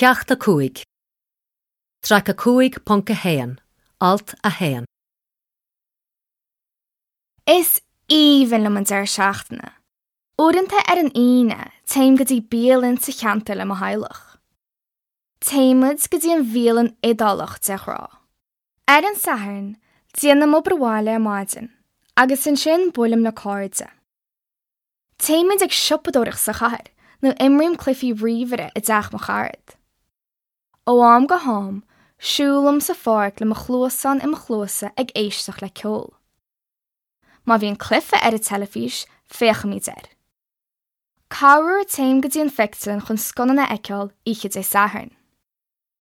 Ceacht 5. Traic 5.1, Alt 1. Is aoibhinn liom an deireadh seachtaine. Uaireanta ar an Aoine, téim go dtí bialann sa cheantar le mo theaghlach. Téimid go dtí an bhialann Iodálach de ghnáth. Ar an Satharn, déanaim obair bhaile ar maidin agus ansin buailim le cairde. Téimid ag siopadóireacht sa chathair nó imrím cluichí ríomhaire i dteach mo charad. Ó am go ham, siúlaim sa pháirc le mo chluasáin i mo chluasa ag éisteacht le ceol. Má bhíonn cluiche ar an teilifís, féachaimid air. Corruair téim go dtí an phictiúrlann chun scannán a fheiceáil oíche Dé Sathairn.